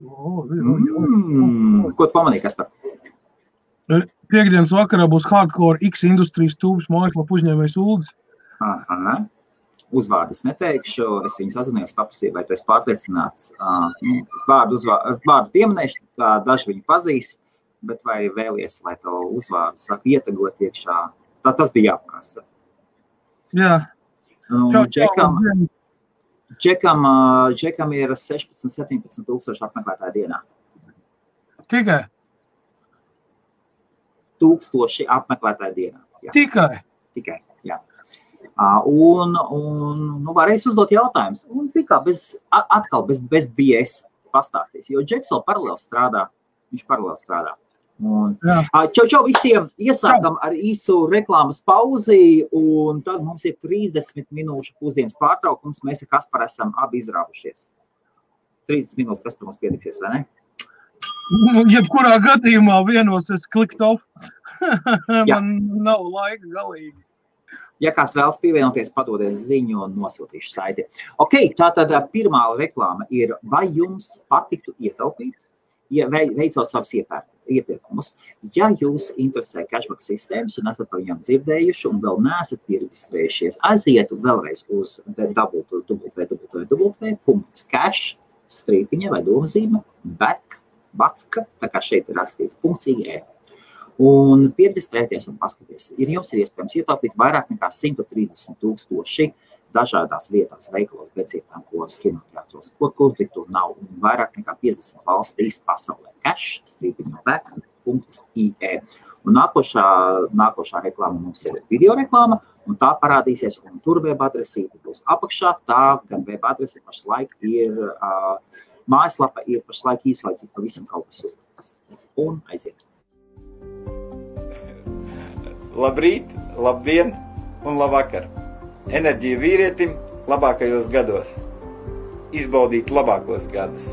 Ko tu pamanīji, Kaspar? Piektdienas vakarā būs Hardcore X Industries tūbes mājaslapa uzņēmējs Uldis. Uzvārdus neteikšu, es viņu sazinājos, paprasīju, vai tu esi pārliecināts. Vārdu pieminēšu, daži viņu pazīst, bet vai vēlies, lai to uzvārdu saka ietagot iekšā? Tas bija jāprasa. Jā. Džekam ir 16-17 tūkstoši apmeklētāju dienā. Tikai? 1000 apmeklētāju dienā. Jā. Tikai, jā. Un varēs uzdot jautājumus. Un, zikā, bez BS pastāstīs, jo Džeks vēl paralēli strādā. Viņš paralēli strādā. Čau visiem, iesākam ar īsu reklāmas pauzi, un tad mums ir 30 minūšu pusdienas pārtraukums. Mēs ar Kasparu esam abi izrāvušies. 30 minūtes Kaspar mums pietiksies, vai ne? Jebkurā gadījumā vienos es klikt off. Man nav laika galīgi. Ja kāds vēlas pievienoties, padodiet ziņu un nosūtīšu saiti. Ok, tātad pirmā reklāma ir, vai jums patiktu ietaupīt, veicot savus iepirkumus. Ja jūs interesē cashback sistēmas un esat par viņām dzirdējuši un vēl neesat pieregistrējušies, aizietu vēlreiz uz www.cash_vai domzīme, tā kā šeit ir rakstīts .ie. Un pieregistrēties un paskaties. Jums ir iespējams ietaupīt vairāk nekā 130,000 dažādās vietās, veikalos, bedzītām, kinoteātros, ko tur nav, un vairāk nekā 50 valstīs pasaulē. cash_vai.ie. Un nākošā reklāma mums ir video reklāma, un tā parādīsies, un tur web adresīte būs apakšā. Tā gan web adrese pašlaik ir, mājaslapa ir pašlaik īslaicīgi pavisam kaut kas uzlikts. Un aiziet. Labrīt, labdien un labvakar. Enerģija vīrietim labākajos gados. Izbaudīt labākos gadus.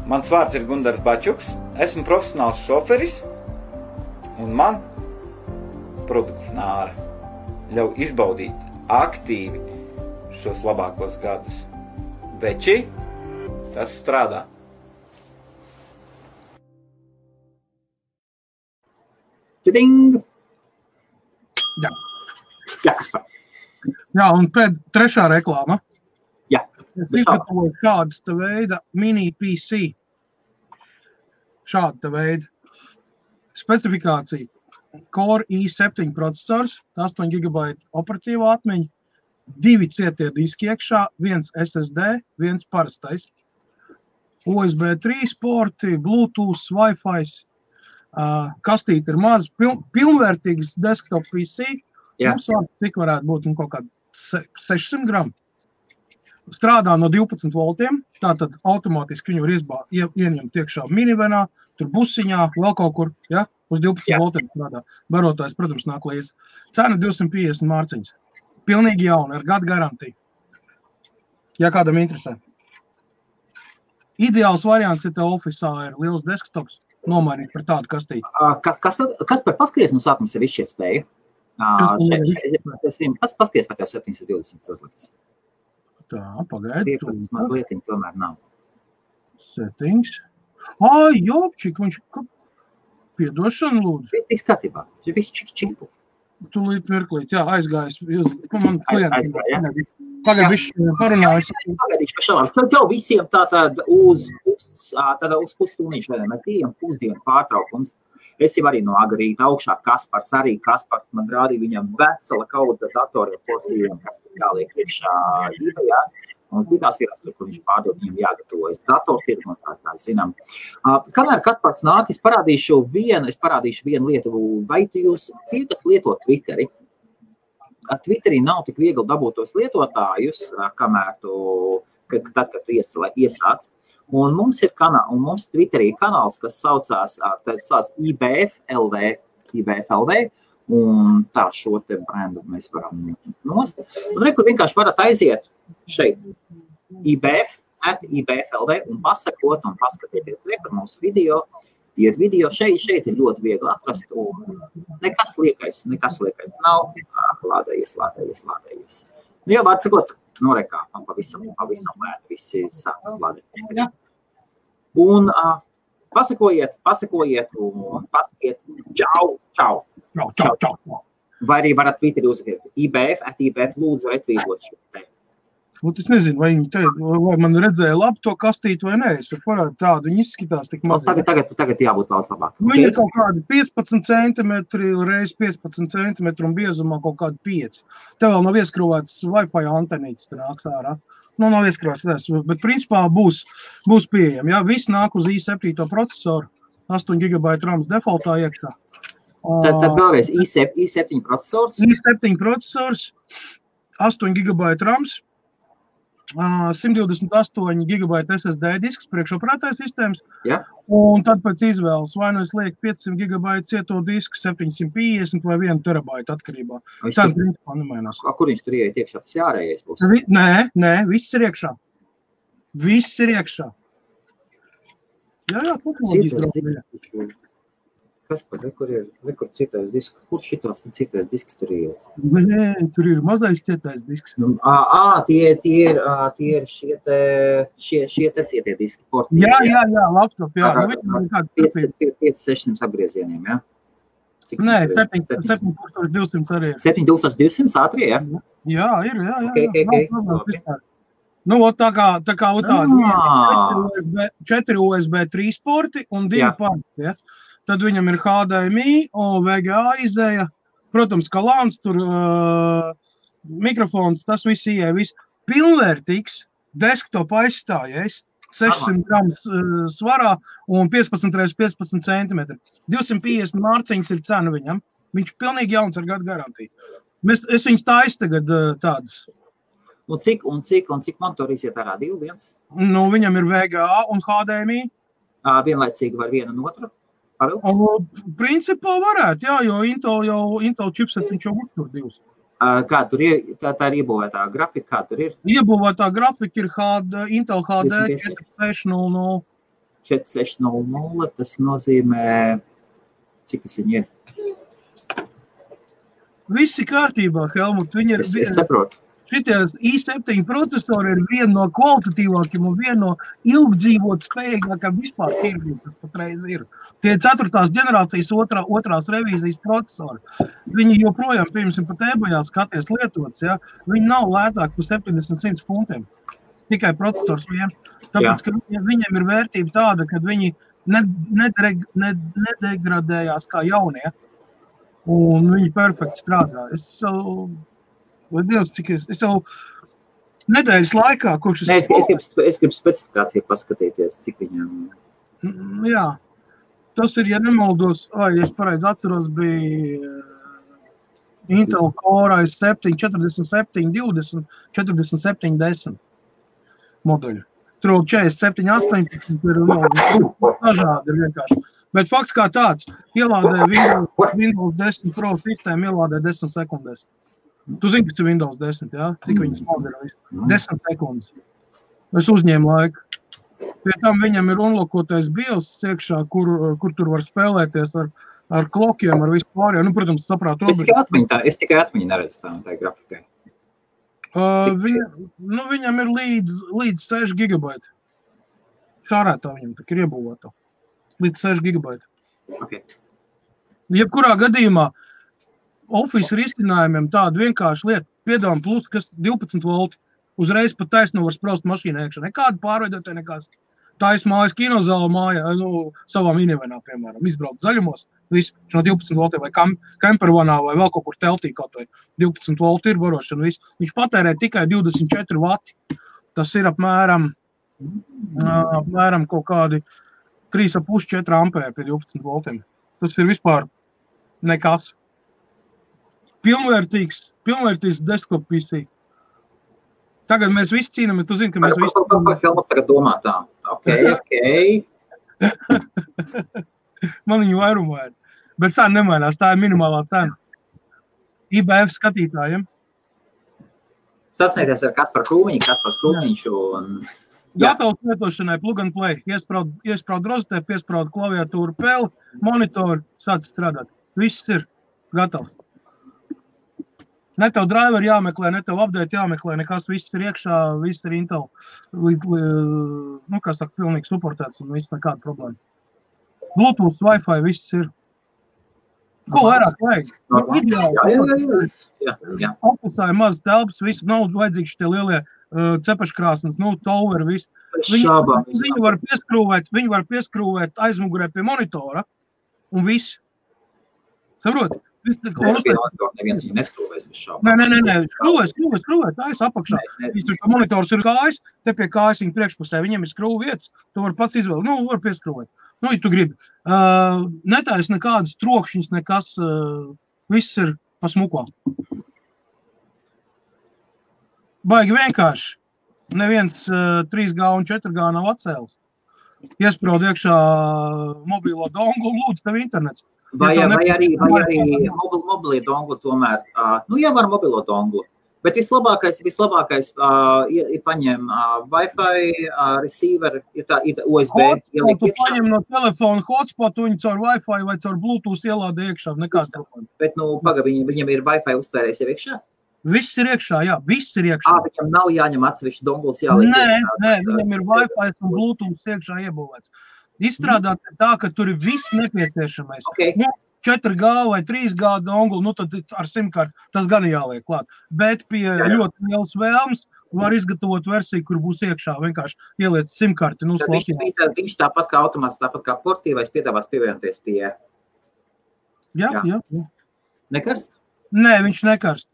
Mans vārds ir Gundars Bačuks, esmu profesionāls šoferis, un man produkts Nāra ļauj izbaudīt aktīvi šos labākos gadus. Veči, tas strādā. Tiding! Jā, Kaspar. Jā, un trešā reklāma. Jā. Es izgatavoju šādas te veida mini PC. Šāda te veida. Specifikācija. Core i7 procesors, 8 GB operatīvā atmiņa, 2 cietie diski iekšā, 1 SSD, 1 parastais. USB 3 porti, Bluetooth, Wi-Fi. Kastīte ir maz, pilnvērtīgs desktop PC. Mums cik varētu būt kaut kādi 600 gramu. Strādā no 12 voltiem, tātad automātiski viņu var ieņemt iekšā minivenā, tur busiņā, vēl kaut kur, ja, uz 12 voltiem strādā. Barotājs, protams, nāk līdz. Cena 250 mārciņas. Pilnīgi jauna, ar gadu garantiju. Ja kādam interesē. Ideāls variants, ja tev ofisā ir liels desktops, nomainīt par tādu kastīti. Kas par paskaties no sākuma sev izšķiet spēju? Paskaties, vai tev 720 uzlikts. Tā, pagaidi. Mazlietiņ tomēr nav. Settings. Jopčik, viņš piedošana lūdzu. Viss skatībā, viss čipu. Tūlīt mirklīt, jā, aizgājis. Man klienti. Tagad viņš parunājas. Pagaidīšu pa šalām. Tev visiem tātad uz pusstunīšu, vai mēs ejam pusdienu pārtraukums. Es jau arī no agrīta augšā Kaspars, man rādīja viņam vesela kauda datoriem portīviem, kas jāliek iekšā īvajā. Un citās vietās, kur viņš pārdod, viņam jāgatavojas datortirgu un tā zinām. Kamēr Kaspars nāk, es parādīšu vienu lietu, vai jūs tie, kas lieto Twitteri, Twitterī nav tik viegli dabūt tos lietotājus, kamēr kad tu iesāc. Un mums ir mums Twitterī kanāls, kas saucās IBF.LV, un tā šo te brendu mēs varam nost. Un kur vienkārši varat aiziet šeit, IBF.LV, un pasakot un paskatieties par mūsu video. Iet video šeit ir ļoti viegli atrast, un nekas liekais nav, lādējies. Jā, vārds sakot, norekā, man pavisam lēni visi sāc lādēties. Un pasakojiet un pasakiet čau. Vai arī varat Twitterī uzrakstīt IBF lūdzu retvītot šo te. Es nezinu, vai viņi te, vai man redzēja labi to kastīti vai nē. Es parādu tādu, viņi izskatās tik maz. Tagad jābūt daudz labāk. Viņi ir kaut kādi 15 centimetri reiz 15 centimetri un biezumā kaut kādi 5. Te vēl nav ieskrūvēts Wi-Fi antenītis, te nāks ārā. Nav ieskrūvēts, bet principā būs pieejami. Jā, viss nāk uz i7 procesoru, 8 GB RAMs defaultā iekšā. Tad vēlreiz i7 procesors. i7 procesors, 8 GB RAMs, 128 GB SSD disks priekšoperētāja sistēmas, un tad pēc izvēles vai nu es lieku 500 GB cieto disku, 750 vai 1 terabaita atkarībā. Cena principā nemainās. Kur viņš tur ieiet iekšā? Tas jārējais būs? Nē, viss ir iekšā. Jā, tehnoloģijas draudzīja. Kas par rekur citais disks? Kur šitāds citais disks tur iet? Nē, tur ir mazais citais disks. Tie ir šie te cietie diski. Jā, laptop, jā. 5-600 apgriezieniem, jā? Nē, 7200 arī ir. 7200 ātrie, jā? Jā, ir. Okay. Nu, tā kā tādi 4 USB 3 porti un 2 porti, ja? Tad viņam ir HDMI, VGA izēja, protams, kalāns, tur mikrofons, tas viss ieeja, viss pilnvērtīgs desktop aizstājies, 600 grams svarā un 15x15 cm. 250 mārciņas ir cena viņam, viņš pilnīgi jauns ar gadu garantiju. Es viņus taisu tagad tādas. Un cik monitori iziet ārā? 2, 1? Nu, viņam ir VGA un HDMI. Vienlaicīgi var vienu un otru? Principā varētu, jā, jo Intel chipset viņš jau uztur 2. Kā tur ir, tā ir iebūvētā grafika, kā tur ir? Iebūvētā grafika ir Intel HD 4600. 4600, tas nozīmē, cik tas viņi ir? Visi kārtībā, Helmut. Es saprotu. Šitie i7 procesori ir viena no kvalitatīvākiem un viena no ilgdzīvot spējīgākām vispār tirgiem, kas patreiz ir. Tie 4. ģenerācijas otrās revīzijas procesori. Viņi joprojām, piemēram, pat eBayā skaties lietots, ja? Viņi nav lētāk par 70-100 funtiem. Tikai procesors vien. Tāpēc, ka viņiem ir vērtība tāda, ka viņi nedegradējās kā jaunie. Un viņi perfekti strādā. Vai Dievs, cik es jau nedēļas laikā, kurš es gribu specifikāciju paskatīties, cik viņam... Jā, tas ir, ja nemaldos, es pareizi atceros, bija Intel Core i7 4720, 4710 modeļu. Tur 4718 ir dažādi ir vienkārši. Bet fakts kā tāds, ielādē Windows 10 Pro sistēmu, ielādē 10 sekundēs. Tu zini, kas ir Windows 10, jā? Cik viņas modeļi? 10 sekundes. Es uzņēmu laiku. Pie tam viņam ir unlokotais BIOS iekšā, kur tur var spēlēties ar klokiem, ar visu pārējo. Nu, protams, saprāt robežu. Es tikai atmiņu neredzu tā grafikai. Viņam ir līdz 6 GB. Šārētā viņam tak ir iebūvēta. Līdz 6 GB. Okay. Jebkurā gadījumā Office risinājumiem tādu vienkārši lietu piedāvām plus, kas 12 volti, uzreiz pat taisno var spraust mašīnā iekšā. Nekādu pārveidotāju, nekās. Tais mājas kinozāla māja, savā minivanā, piemēram, izbraukt zaļumos, viss no 12 voltiem vai campervanā vai vēl kaut kur teltī kaut vai 12 volti ir varošana, viss. Viņš patērē tikai 24 vati. Tas ir apmēram kaut kādi 3,5-4 ampēri pie 12 voltiem. Tas ir vispār nekas. Pilnvērtīgs desktop PC. Tagad mēs visi cīnāmies, tu zini, ka mēs visi... Helmut tagad domā tā. Ok. Man viņu vairumā ir. Bet cena nemainās, tā ir minimālā cena. IBF skatītājiem. Sasniegties ar Kaspar Krūmiņš un... Gatavs lietošanai plug and play. Iespraud rozetē, piespraud klaviatūru peli, monitoru, sāc strādāt. Viss ir gatavs. Ne tev driver jāmeklē, ne tev update jāmeklē, nekas, viss ir iekšā, viss ir Intel, kā saka, pilnīgi suportēts un viss nekāda problēma. Bluetooth, Wi-Fi, viss ir. Ko vairāk vajag? Jā. Ofisā ir maz telpas, viss nav vajadzīgs šitie lielie cepaškrāsnes, tower, viss. Viņu var pieskrūvēt aizmugurē pie monitora un viss. Saprot? Neviens viņu neskrūvēs bez šābām. Nē, skrūvē, tā es apakšā. Monitors ir kājas, te pie kājas viņa priekšpusē, viņiem ir skrūvu vietas, tu var pats izvēlēt, var pieskrūvēt. Ja tu gribi. Netais nekādas trokšņas, nekas, viss ir pa smuko. Baigi vienkārši. Neviens 3G un 4G nav atcēlis. Iespraud iekšā mobilo donglu un lūdzu tev internets. Vai arī mobilie donglu tomēr, ja var mobilo donglu, bet vislabākais ir paņem Wi-Fi receiver, ir USB. Tu paņem no telefona hotspotu, viņu caur Wi-Fi vai caur Bluetooth ielādi iekšā, nekāda problēma. Bet, viņam ir Wi-Fi uztvērējis jau iekšā? Viss ir iekšā, jā, viss ir iekšā. Viņam nav jāņem atsevišķi donguls jāliek iekšā? Nē, viņam ir Wi-Fi un Bluetooth iekšā iebūvēts. Izstrādāts tā, ka tur ir viss nepieciešamais. Okay. 4G vai 3G donglu, tad ar simkarti tas gan jāliek klāt. Bet pie ļoti lielas vēlmes var izgatavot versiju, kur būs iekšā vienkārši ieliet simkarti. Viņš tāpat kā automāts, tāpat kā portīvais piedāvās pievienoties pie... Jā. Nekarst? Nē, viņš nekarst.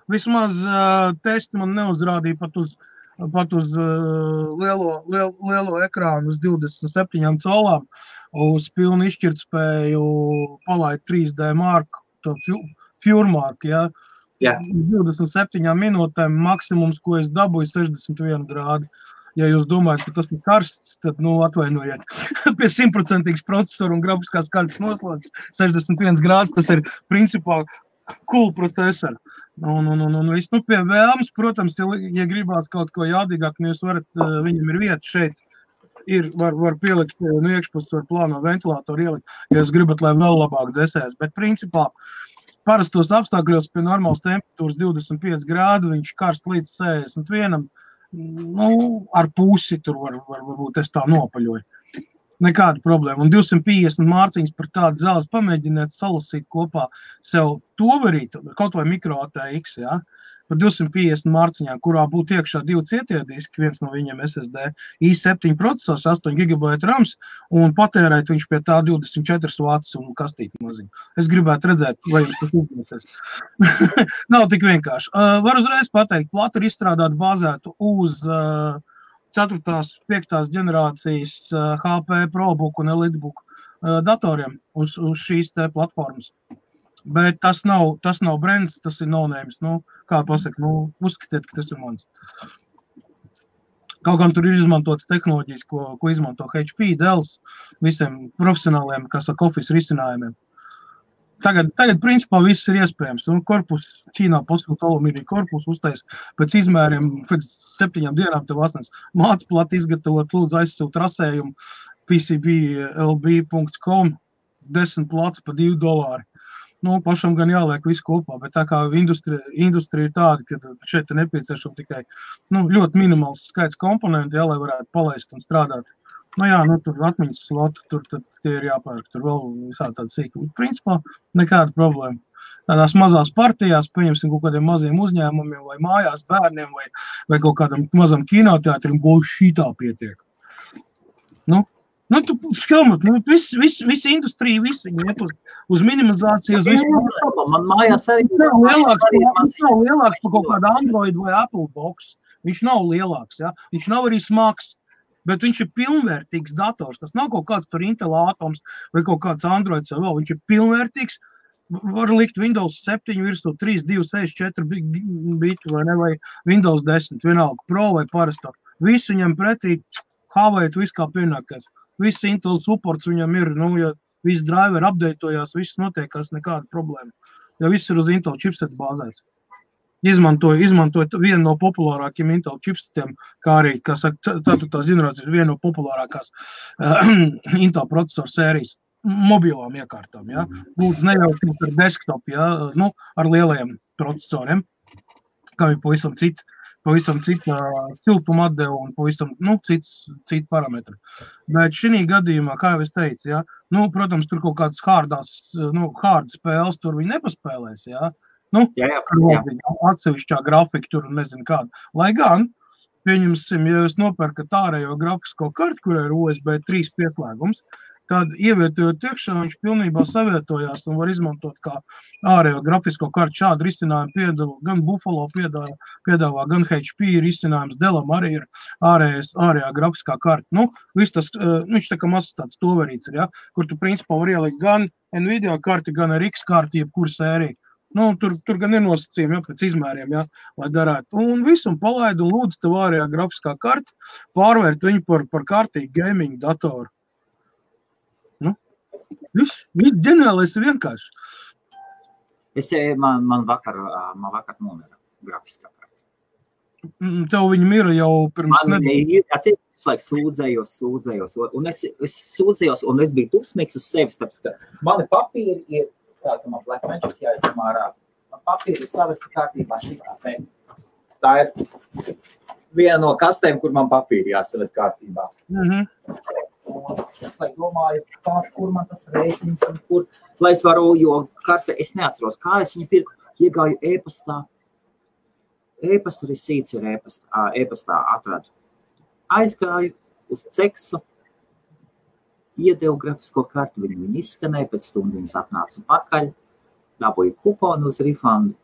Vismaz testi man neuzrādīja pat uz lielo ekrānu uz 27 colām, uz pilnu izšķirtspēju palaid 3D marku, to Pure marku, ja. 27 minūtēm maksimums, ko es dabūju, 61 grādi. Ja jūs domājat, ka tas ir karsts, tad, atvainojiet. Pie 100% procesoru un grafiskās kartes noslēdz 61 grāds, tas ir principā cool procesori. Pie vēlmes, protams, ja gribās kaut ko jādīgāk, jūs varat, viņam ir vieta šeit, var pielikt, iekšpus var plāno ventilātoru ielikt, ja jūs gribat, lai vēl labāk dzēsēs. Bet principā parastos apstākļos pie normālas temperatūras 25 grādu, viņš karst līdz 61, ar pusi tur varbūt es tā nopaļoju. Nekāda problēma. Un 250 mārciņas par tādu zelzi pamēģiniet salasīt kopā sev toverīt, kaut vai micro ATX, ja, par 250 mārciņām, kurā būtu iekšā 2 cietie diski, viens no viņiem SSD, i7 procesors, 8 GB RAMs, un patērēt viņš pie tā 24 vats un kastīti maziņu. Es gribētu redzēt, vai jums tas uzmanīsies. Nav tik vienkārši. Var uzreiz pateikt, plata ir izstrādāt bāzētu uz 4. 5. ģenerācijas HP ProBook un EliteBook datoriem uz šīs te platformas. Bet tas nav brands, tas ir no-names. Kā pasaka, uzskatiet, ka tas ir mans. Kaut gan tur ir izmantotas tehnoloģijas, ko izmanto HP, Dell, visiem profesionāliem, kas saka, office risinājumiem. Tagad principā viss ir iespējams. Korpus, Ķīnā pasūta alumīnija korpus uztais pēc izmēriem, pēc 7 dienām tev asnes māc plati izgatavot, lūdzu aizsūt rasējumu pcblb.com 10 plats pa $2. Pašam gan jāliek visu kopā, bet tā kā industrija ir tāda, ka šeit ir nepieciešama tikai ļoti minimāls skaits komponenti, lai varētu palaist un strādāt. Tur atmiņas sloti, tur tie ir jāpērk, tur vēl visā tāda sīka. Principā nekāda problēma. Tādās mazās partijās, pieņemsim kaut kādiem maziem uzņēmumiem vai mājās bērniem vai kaut kādam mazam kinoteātrim, šitā pietiek. Tu filmat, visi industrija, visi viņi iet uz minimizāciju, uz visu. Man mājās arī nav lielāks par kaut kādu Android vai Apple box. Viņš nav lielāks, ja? Viņš nav arī smags. Bet viņš ir pilnvērtīgs dators. Tas nav kaut kāds tur Intel atoms vai kaut kāds Androids vai vēl. Viņš ir pilnvērtīgs. Var likt Windows 7 virsū 3, 2, 6, 4 bitu vai ne, vai Windows 10, vienalga Pro vai parasto. Visu viņam pretī havēt viss kā pienākais. Viss Intel supports viņam ir, ja viss driver updatojās, viss notiekās, nekāda problēma. Ja viss ir uz Intel chipset bāzēts. Izmantoja vienu no populārākiem Intel chipsetiem, kā arī, kā saka, 4. ģenerācijas viena no populārākās Intel procesoru sērijas. mobilām iekārtām, ja? Lūdzu, nejaukt ar desktop, ja? Nu, ar lielajiem procesoriem, kam ir pavisam cita siltuma atdeva un pavisam, nu, citi parametri. Bet šī gadījumā, kā jau es teicu, ja? Nu, protams, tur kaut kādas hard spēles tur viņi nepaspēlēs, ja? Nu, atsevišķā grafika tur nezinu kāda. Lai gan, pieņemsim, ja jūs nopērkat ārējo grafisko kartu, kur ir USB 3 pieslēgums, tad ievietojot iekšā, viņš pilnībā savietojās un var izmantot kā ārējo grafisko kartu. Šādu risinājumu piedāvā gan Buffalo piedāvā, gan HP risinājums, Dellam arī ir ārējā grafiskā karta. Nu, viss tas, viņš tā kā mazs tāds toverīts ir, ja, kur tu principā var ielikt gan Nvidia karti, gan RX karti, jebkura sērija. Nu, tur gan ir nosacījumi, ja, pēc izmēriem, ja, lai darētu. Un visu un palaidu un lūdzu tev ārējā grafiskā karta, pārvērt viņu par kārtīgu gaming datoru. Nu, viss ģeniālais ir vienkārši. Man vakar nomira grafiskā karta. Tev viņa mira jau pirms nedēļas. Es laiku sūdzējos. Un es sūdzējos, un es biju dusmīgs uz sevis, tāpēc, ka mani papīri ir tā, ka man Black Magic jāizsam ārā. Man papīri ir savesti kārtībā šitā. Tā ir viena no kastēm, kur man papīri jāsavet kārtībā. Un es domāju, kur man tas rēķins un kur, lai es varu, jo karte, es neatceros, kā es viņu pirku, iegāju e-pastā. E-pasta risīts ir e-pastā atradu. Aizgāju uz Ceksu, iedevu grafisko kartu, viņu izskanēja, pēc stundiņas atnāca pakaļ, dabūju kuponu uz refundu.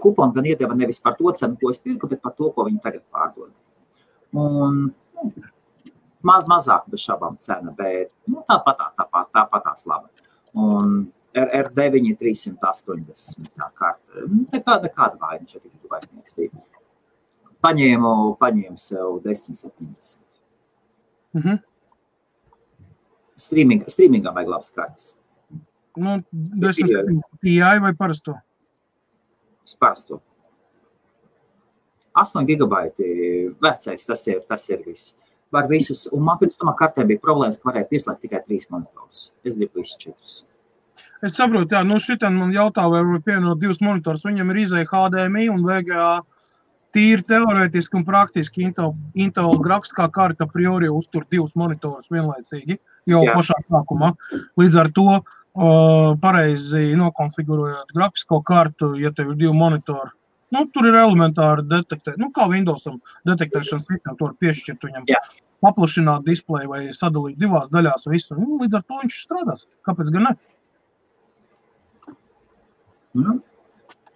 Kuponu gan iedeva nevis par to cenu, ko es pirku, bet par to, ko viņi tagad pārdod. Un mazāk bez šabām cena, bet tāpatās laba. Un R9 380 tā karta. Nekāda vaina šeit tikai vainīgs bija. Paņēmu sev 1070. Streamingā vajag labas kartas. Nu, 1070 Ti vai parasto? Parasto. 8 gigabaiti vecais, tas ir viss. Var visus, un man pirms tamā kartē bija problēmas, ka varēja pieslēgt tikai 3 monitorus. Es gribu visus 4. Es saprotu, jā, nu šitan man jautā, vai pievienot 2 monitors, viņam ir izēja HDMI un VGA. Tīri teorētiski un praktiski Intel grafiskā karta priori uztur 2 monitorus vienlaicīgi, jau pašā sākumā. Līdz ar to pareizi nokonfigurējot grafisko kartu, ja tev ir 2 monitori, nu, tur ir elementāri detektēt, nu, kā Windowsam detektēšanas sistēma, to var piešķirt viņam, paplašināt displeju vai sadalīt 2 daļās visu, nu, līdz ar to viņš strādās. Kāpēc gan ne?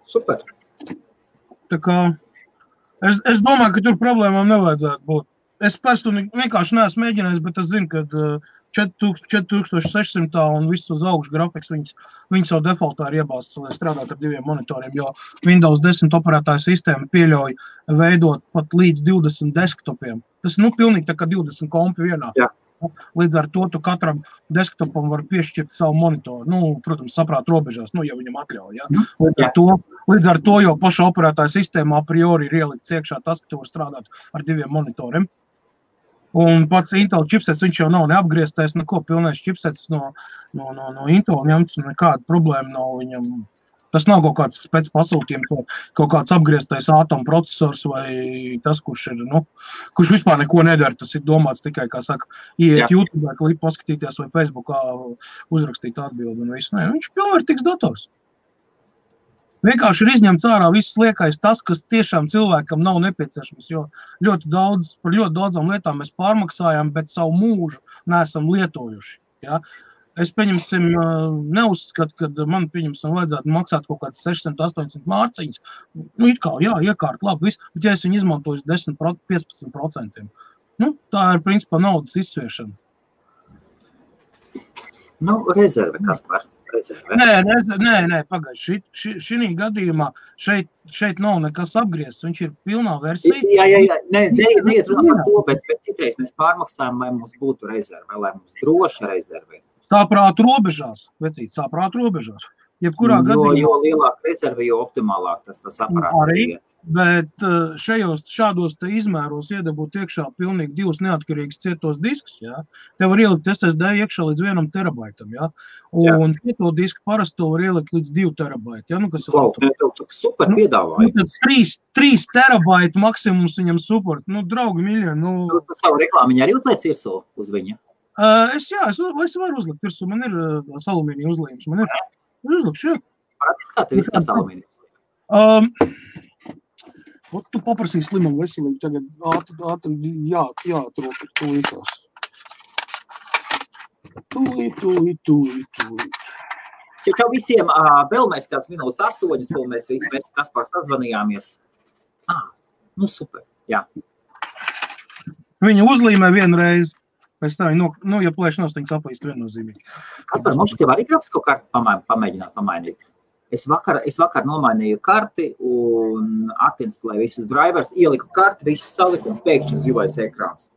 Super. Tā kā Es domāju, ka tur problēmām nevajadzētu būt. Es personīgi vienkārši neesmu mēģinājis, bet es zinu, ka 4600 un viss uz augšu grafiks viņas jau defaultā ir iebāzts, lai strādāt ar 2 monitoriem, jo Windows 10 operētāja sistēma pieļauj veidot pat līdz 20 desktopiem. Tas pilnīgi tā kā 20 kompi vienā. Jā. Līdz ar to tu katram desktopam var piešķirt savu monitoru. Nu, protams, saprāt robežās, ja viņam atļauj. Ja? Līdz ar to jau paša operētāja sistēmā a priori ir ielikts iekšā tas, ka tu var strādāt ar 2 monitoriem. Un pats Intel chipsets, viņš jau nav neapgrieztais, neko pilnais chipsets no Intel ņemts, nekāda problēma nav viņam. Tas nav kaut kāds spēc pasūtījums, kaut kāds apgrieztais ātom procesors vai tas, kurš kurš vispār neko nedara. Tas ir domāts tikai, kā saka, ieiet YouTube, klipu paskatīties vai Facebookā uzrakstīt atbildi un visu. Nē, viņš pilnvērtīgs dators. Vienkārši ir izņemts ārā viss liekais tas, kas tiešām cilvēkam nav nepieciešams, jo par ļoti daudzām lietām mēs pārmaksājam, bet savu mūžu neesam lietojuši. Ja? Es, neuzskatu, ka man, vajadzētu maksāt kaut kāds 600-800 mārciņas. Nu, it kā, iekārt, labi, viss, bet ja es viņu izmantoju 10-15%, tā ir, principā, naudas izsviešana. Rezerve, kas par rezerve? Nē, pagaid, šī gadījumā šeit nav nekas apgriezts, viņš ir pilnā versija. Jā, neiet runā par to, bet citreiz mēs pārmaksājam, lai mums būtu rezerve, lai mums droša rezerve. Sāprāt robežās, vecīt, sāprāt robežās. Jebkurā gadījumā. Jo lielāka rezerve, jo optimālāk tas aparāts ir. Bet šādos te izmēros iedabūt iekšā pilnīgi 2 neatkarīgas cietos diskus, jā. Te var ielikt SSD iekšā līdz 1 terabaitam, jā. Un cieto disku parasti to var ielikt līdz 2 terabaiti, jā. Nu, kas tev super piedāvājums. 3 terabaiti maksimums viņam support. Nu, draugi miļoni. Tu savu reklāmiņu arī uzliec virsū uz viņa? Es varu uzlikt virsū. Man ir alumīnija uzlījums. Man ir uzlikšu, jā. Parādīs, kā tev izskās alumīnija uzlījums? Tu paprasīji slimam veselību, tagad ātri jāatrok tūlītās. Tūlīt. Čau visiem, vēl mēs kāds minūtes 8, un mēs Kaspar sazvanījāmies. Nu super, jā. Viņa uzlīmē vienreiz, pēc tā viņa, ja plēš nostiņas aplīst viennozīmīgi. Kaspar, mums tev arī grafisko karti pamēģināt pamainīt? Es vakar nomainīju karti un atinstalēju visus drivers, ieliku karti, visus saliku un pēkšņi zilais ekrāns.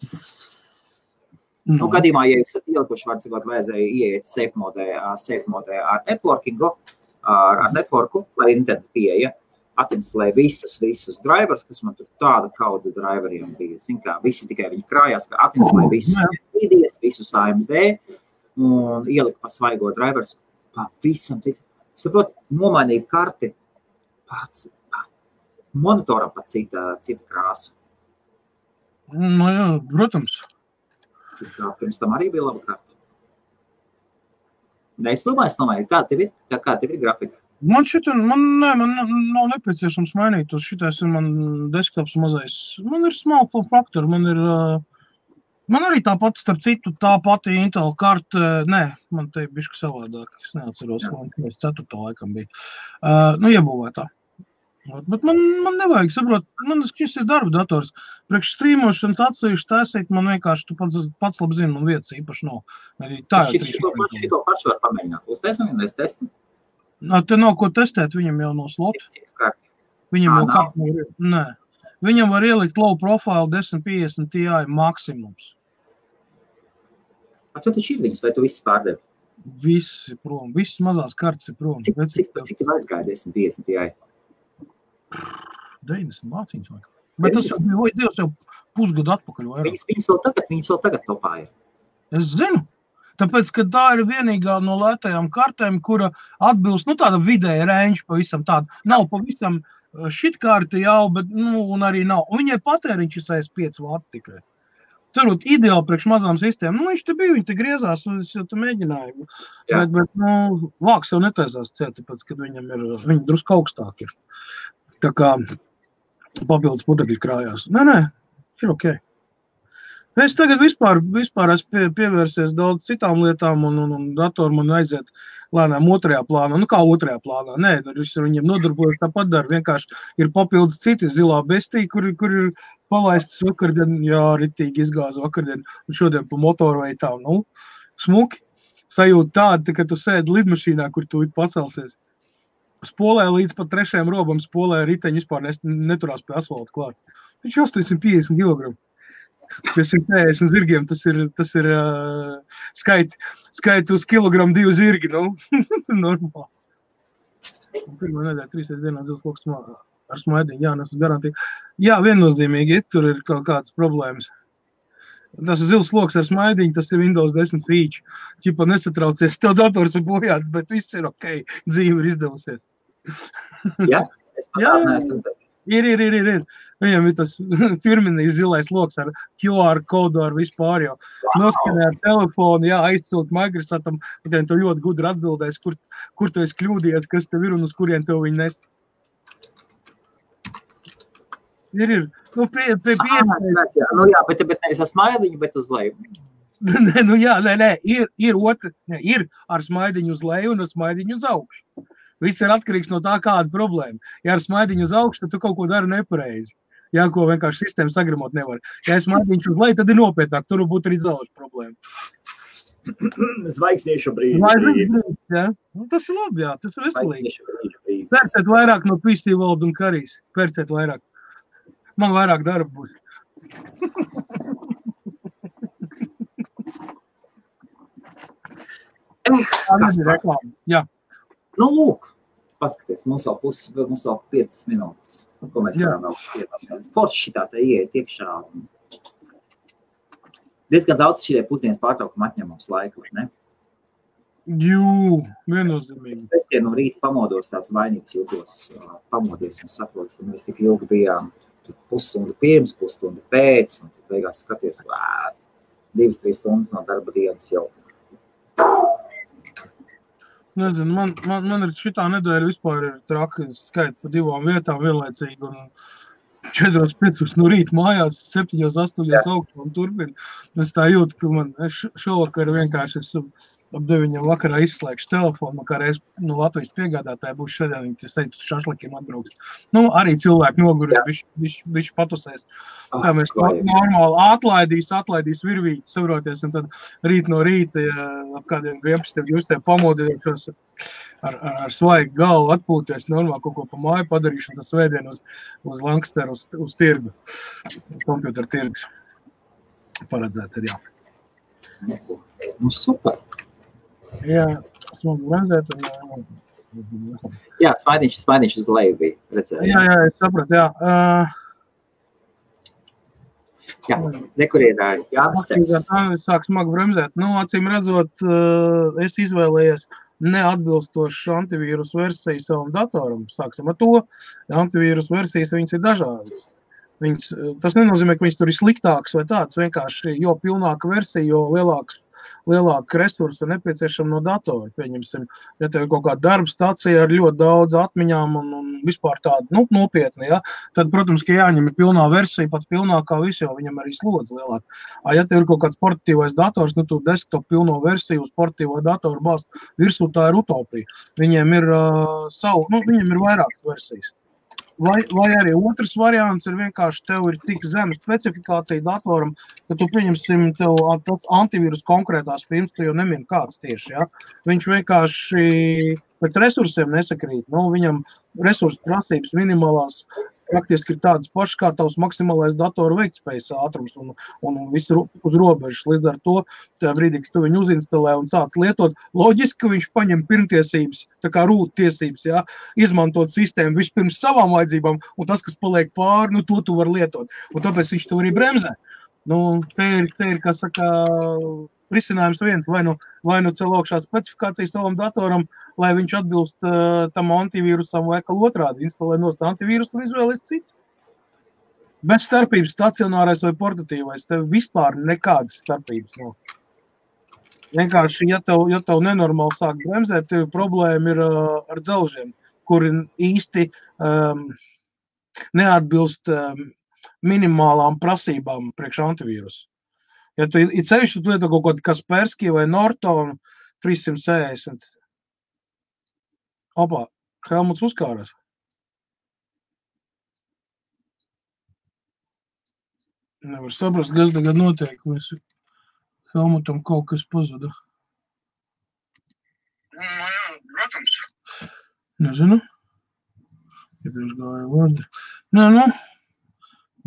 Nu, gadījumā, ja esat ielikuši, var cikot vajadzēja ieiet safe modē ar networkingu, ar networku, lai internet pieeja, atinstalēju visus drivers, kas man tur tāda kaudze driveriem bija. Zin kā, visi tikai viņi krājās, ka atinstalēju visus NVIDIAs, visus AMD un ieliku pa svaigo drivers pavisam citu. Saprot, nomainīju karti pats monitoram pat cita krāsa. Nu jā, protams. Pirms tam arī bija laba karta. Es domāju, kā tev ir grafika? Man nav nepieciešams mainīt. Šitais ir man desktops mazais. Man ir small form factor, man arī tāpat, starp citu, tā pati Intel karta, man te bišķi savādāk, es neatceros, man 4. laikam bija. Iebūvētā. Bet man nevajag, saprot, man šis ir darba dators. Priekš strīmošanas atsevišķi taisīt, man vienkārši, tu pats labi zini, man vietas īpaši nav. Šito pašu var pamēģināt. Uztaisam vienreiz testu? Te nav ko testēt, viņam jau no slota. Viņam jau karta nav. Viņam var ielikt low profile 1050 Ti maksimums. Tu taču ir viņas, vai tu viss pārdevi? Viss ir prom, visas mazās kartas ir prom. Cik tev aizgāja 1050 Ti? 90 mācīņas vai? Bet tas jau pusgadu atpakaļ vairāk. Viņas vēl tagad topā ir. Es zinu. Tāpēc, ka tā ir vienīgā no lētajām kartēm, kura atbilst, tāda vidēja range pavisam tāda. Nav pavisam šitkārti jau, bet, un arī nav. Un viņai patēriņš ir 65 vati tikai. Cerot, ideāli priekš mazām sistēmām. Viņš te bija, viņi te griezās, un es jau te mēģināju. Bet vāks jau netaisās ciet, tāpēc, kad viņi drusku augstāk ir. Tā kā papildus putekļi krājās. Nē, ir ok. Es tagad vispār esmu pievērsies daudz citām lietām, un datoru man aiziet lēnām otrajā plānā. Nu, kā otrajā plānā? Nē, viņiem nodarbojas tāpat dara. Vienkārši ir papildus citi zilā bestī, kur ir palaistas vakardien, ritīgi izgāza vakardien, un šodien pa motorveitām. Smuki. Sajūta tāda, ka tu sēdi lidmašīnā, kur tu pacelsies. Spolē līdz pat 3. robam, spolē riteņi vispār neturās pie asfalta klāt. Viņš 850 kg. Pie 150 zirgiem tas ir skaiti uz kilogramu 2 zirgi, normāli. Pirmā nedēļa 3 dienā zils loks ar smaidiņu, nesu garantīgi. Jā, viennozīmīgi, tur ir kaut kādas problēmas. Tas ir zils loks ar smaidiņu, tas ir Windows 10 feature. Ķipa nesatraucies, tev dators ir bojāts, bet viss ir ok, dzīve ir izdevusies. Jā, es pat neesmu redzējis. Ir. Viņam ir tas firminīs zilais loks ar QR kodu ar vispār jau. Noskanē ar telefonu, aizcelt Microsoftam, un tu ļoti gudri atbildēs, kur tu esi kļūdījies, kas tev ir un uz kurien tev viņi nest. Ir. Bet nevis ar smaidiņu, bet uz leju. Ir ar smaidiņu uz leju un ar smaidiņu uz augšu. Viss ir atkarīgs no tā, kāda problēma. Ja ar smaidiņu uz augšu, tad tu kaut ko dari nepareizi. Ja ko vienkārši sistēma sagramot nevar. Ja ar smaidiņu uz leju, tad ir nopietnāk. Tur būtu arī dzelžu problēma. Zvaigzniešu brīdis. Tas ir labi, tas ir veselīgi. Pērciet vairāk no PC World un Karijas. Pērciet vairāk. Man vairāk darba būs. Jā. Nu, lūk, paskaties, mums vēl 5 minūtes, ko mēs varam vēl piedāvāt. Forši šitā te ieiet iekšā. Diezgan daudz šitie pusdienas pārtraukumi atņem mums laiku, vai ne? Jū, viennozīmīgi. Es te no rīta pamodos tāds vainīgs jūtos, pamodies un saprotu, ka mēs tik ilgi bijām pusstundu pirms, pusstundu pēc, un tad beigās skaties, 2-3 stundas no darba dienas jau. Nezinu, man ir šitā nedēļa vispār ir traki, skait pa 2 vietām vienlaicīgi, un 4-5 no rīta mājās, 7-8 augstu un turpin. Es tā jūtu, ka man šovakar vienkārši esmu ap 9 vakarā izslēgšu telefonu, kā reiz no Latvijas piegādātāja būs šodien, viņi teicu, šašlikiem atbrauks. Nu, arī cilvēki nogurēs, bišķi patusēs. Tā mēs normāli atlaidīs virvīti, savroties, un tad rīt no rīta, ap kādiem 11-12 pamodījušos ar svaigu galvu atpūties, normāli kaut ko pa māju padarīšu, un tas svētdien uz Lanksteru, uz tirgu, kompjuteru tirgus. Paredzēts ir, jā. Nu, super. Jā, smagu bremzēt. Jā, smaidiņš uz leju bija, redzēju. Jā, es sapratu, jā. Jā, nekur ir Jānis Seks. Sāk smagu bremzēt. Nu, acīm redzot, es izvēlējies neatbilstošu antivīrus versiju savam datoram. Sāksim ar to. Antivīrus versijas, viņas ir dažādas. Tas nenozīmē, ka viņas tur ir sliktāks vai tāds. Vienkārši, jo pilnāka versija, jo lielāka resursa nepieciešama no datora. Pieņemsim, ja tev ir kaut kāda darba stacija ar ļoti daudz atmiņām un vispār tādu nopietni, ja, tad, protams, ka jāņem ir pilnā versija, pat pilnākā visu, jo viņam arī slodze lielāk. Ja tev ir kaut kāds sportīvais dators, tu desktop pilno versiju uz sportīvo datoru bāzt virsū, tā ir utopija. Viņiem ir viņiem ir vairākas versijas. Vai arī otrs variants ir vienkārši tev ir tik zema specifikācija datoram, ka tu pieņemsim tev tas antivīrus konkrētās firmas, tu jau nemini kāds tieši, ja? Viņš vienkārši pēc resursiem nesakrīt. Viņam resursu prasības minimālās praktiski ir tādas pašas kā tavs maksimālais datoru veiktspējas ātrums un viss uz robežas. Līdz ar to, tajā brīdī, kad tu viņu uzinstalē un sāc lietot, loģiski, ka viņš paņem pirmtiesības, tā kā rūt tiesības, ja, izmantot sistēmu vispirms savām vajadzībām, un tas, kas paliek pāri, to tu var lietot. Un tāpēc viņš to arī bremzē. Te ir, kā saka, risinājums viens, vai nu cel augšā specifikāciju savam datoram, lai viņš atbilst tam antivīrusam vai kā otrādi, instalē nost antivīrusu un izvēlies citu. Bez starpības stacionārais vai portatīvais, tev vispār nekādas starpības nav. Vienkārši, ja tev nenormāli sāk bremzēt, tev problēma ir ar dzelžiem, kuri īsti neatbilst minimālām prasībām priekš antivīrusu. Ja tu ir ceļš, tu lieto kaut kādu Kaspersky vai Norton 360. Opā, Helmuts uzkāras. Nevar saprast, kas tagad notiek. Helmutam kaut kas pazuda. Jā, protams. Nezinu. Iepriekš gāja vārdi. Nē,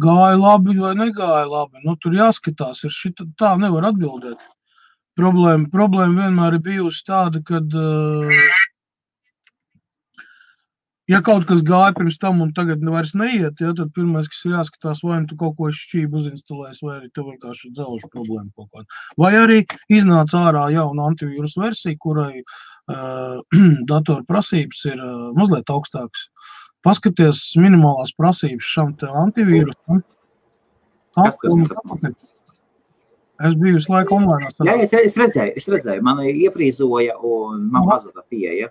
gāja labi vai negāja labi. Tur jāskatās, tā nevar atbildēt. Problēma vienmēr ir bijusi tāda, kad ja kaut kas gāja pirms tam un tagad vairs neiet, ja, tad pirmais, kas ir jāskatās, vai tu kaut ko šķību uzinstalēs, vai arī tev vienkārši dzelžu problēma kaut kāda. Vai arī iznāca ārā jauna antivīrus versija, kurai datoru prasības ir mazliet augstākas. Paskaties minimālās prasības šam te antivīrusam. Es biju visu laiku online. Jā, es redzēju, man iefrīzoja un man pazuda pieeja.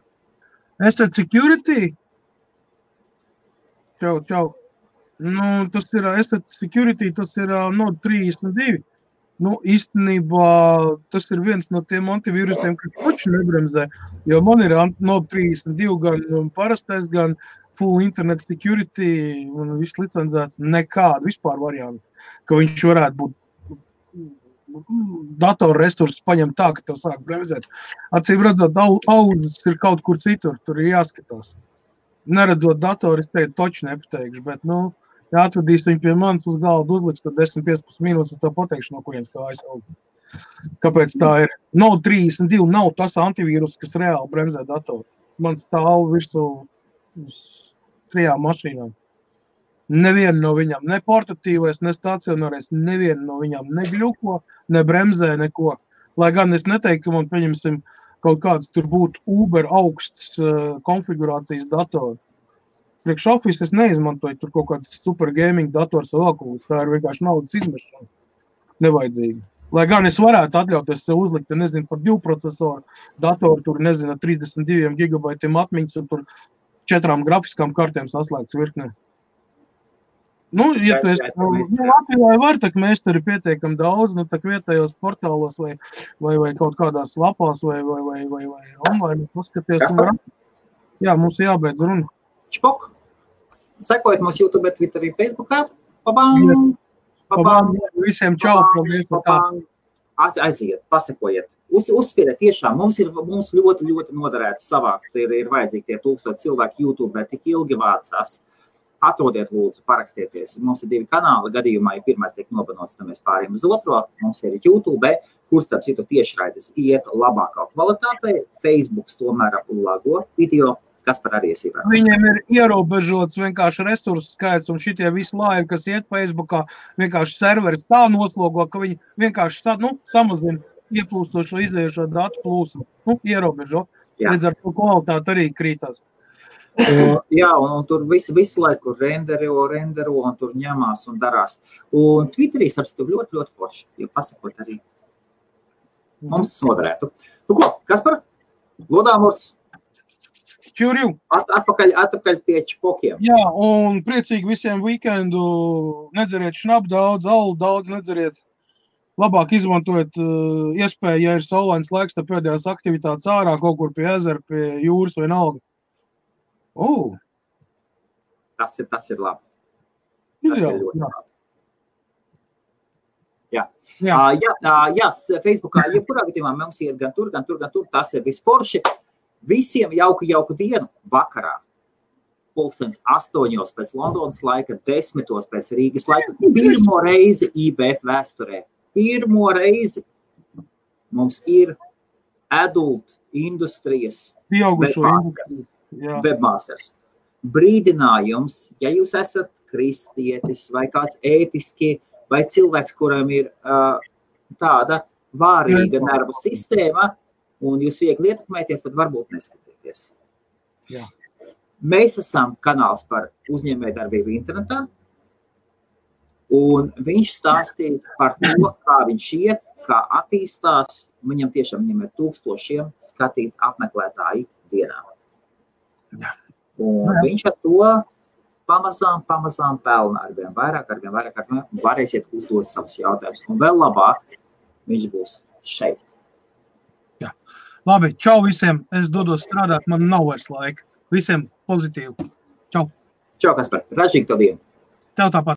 Asset Security? Čau. Tas ir Asset Security, tas ir Node 32. Īstenībā tas ir viens no tiem antivīrusiem, kas taču nebremzē, jo man ir Node 32 gan parastais, gan full internet security un viss licencēts, nekādu vispār variantu, ka viņš varētu būt datoru resursus paņem tā, ka tev sāk bremzēt. Acīm redzot, audzes ir kaut kur citur, tur ir jāskatās. Neredzot datoru, es teiktu, toču nepateikšu, bet, ja atvedīs viņu pie manis uz galdu uzliks, tad 10-15 minūtes, tad pateikšu, no kurienes tā aizauga. Kāpēc tā ir? Node 32 nav tas antivīrus, kas reāli bremzē datoru. Man stāv virsū uz 3 mašīnām. Neviena no viņām, ne portatīvais, ne stacionārais, neviena no viņām negļuko, ne bremzē, neko. Lai gan es neteiktu, ka man, pieņemsim, kaut kāds tur būtu Uber augsts konfigurācijas datori. Priekš Office es neizmantoju tur kaut kāds super gaming dators vai vēl, tā ir vienkārši naudas izmešana. Nevajadzīgi. Lai gan es varētu atļauties sev uzlikt, nezinu, par 2 procesoru datoru, tur, nezinu, 32 gigabaitiem atmiņas un tur 4 grafiskām kartēm saslēgts virknē. Nu, ja tu esi, Latvijā var, tak meistari pietiekam daudz, nu, tak vietējos portālos vai kaut kādās lapās vai online paskaties. Jā, mums jābeidz runa. Čpok. Sekojiet mums YouTube, Twitterī, Facebookā. Pabang! Visiem čau! Aiziet, pasekojiet. Uzspiediet tiešām. Mums ļoti, ļoti noderētu savākt. Ir vajadzīgi tie 1000 cilvēki YouTube, tik ilgi vācās. Atrodiet, lūdzu, parakstieties. Mums ir 2 kanāli. Gadījumā, ja pirmais tiek nobanots, tad mēs pārējām uz otro. Mums ir YouTube, kur starp citu tiešraides iet labākā kvalitātei. Facebooks tomēr lago video, kas par arī iesaistās. Viņiem ir ierobežots vienkārši resursu skaits, un šitie visi laivi, kas iet Facebookā, vienkārši serveri tā noslogo, ka viņi vienkārši samazina ieplūstošo izējušo datu plūsmu. Ierobežo. Līdz ar to kvalitāte arī krītās. Jā, un tur visu laiku rendero, un tur ņemās un darās. Un Twitterī, starpcitu, ļoti, ļoti forši, ja pasakot arī. Mums tas noderētu. Nu ko, Kaspar? Lodāmurs? Čurju. Atpakaļ pie čpokiem. Jā, un priecīgi visiem weekendu. Nedzeriet šnapu daudz, alu daudz nedzeriet. Labāk izmantojiet iespēju, ja ir saulains laiks, tad pēdējās aktivitātes ārā, kaut kur pie ezera, pie jūras vai nalga. Tas ir labi. Tas ir ļoti labi. Jā, Facebookā, jebkurā gadījumā mums iet gan tur, tas ir visporši. Visiem jauku dienu vakarā. 8:00 pēc Londonas laika, 10:00 pēc Rīgas laika. Pirmo reizi IBF vēsturē. Pirmo reizi mums ir adult industrijas webmasters. Brīdinājums, ja jūs esat kristietis vai kāds ētiski vai cilvēks, kuram ir tāda vārīga nervu sistēma un jūs viegli ietekmēties, tad varbūt neskatieties. Jā. Mēs esam kanāls par uzņēmējdarbību internetā, un viņš stāstīs par to, kā viņš iet, kā attīstās. Viņam ir 1000 skatīt apmeklētāji dienā. Jā. Un viņš ar to pamazām pelna arvien vairāk, varēsiet uzdot savus jautājumus. Un vēl labāk, viņš būs šeit. Jā. Labi, čau visiem. Es dodos strādāt, man nav vairs laika. Visiem pozitīvi. Čau. Čau, Kaspar. Ražīgi tev dienu. Tev tāpat.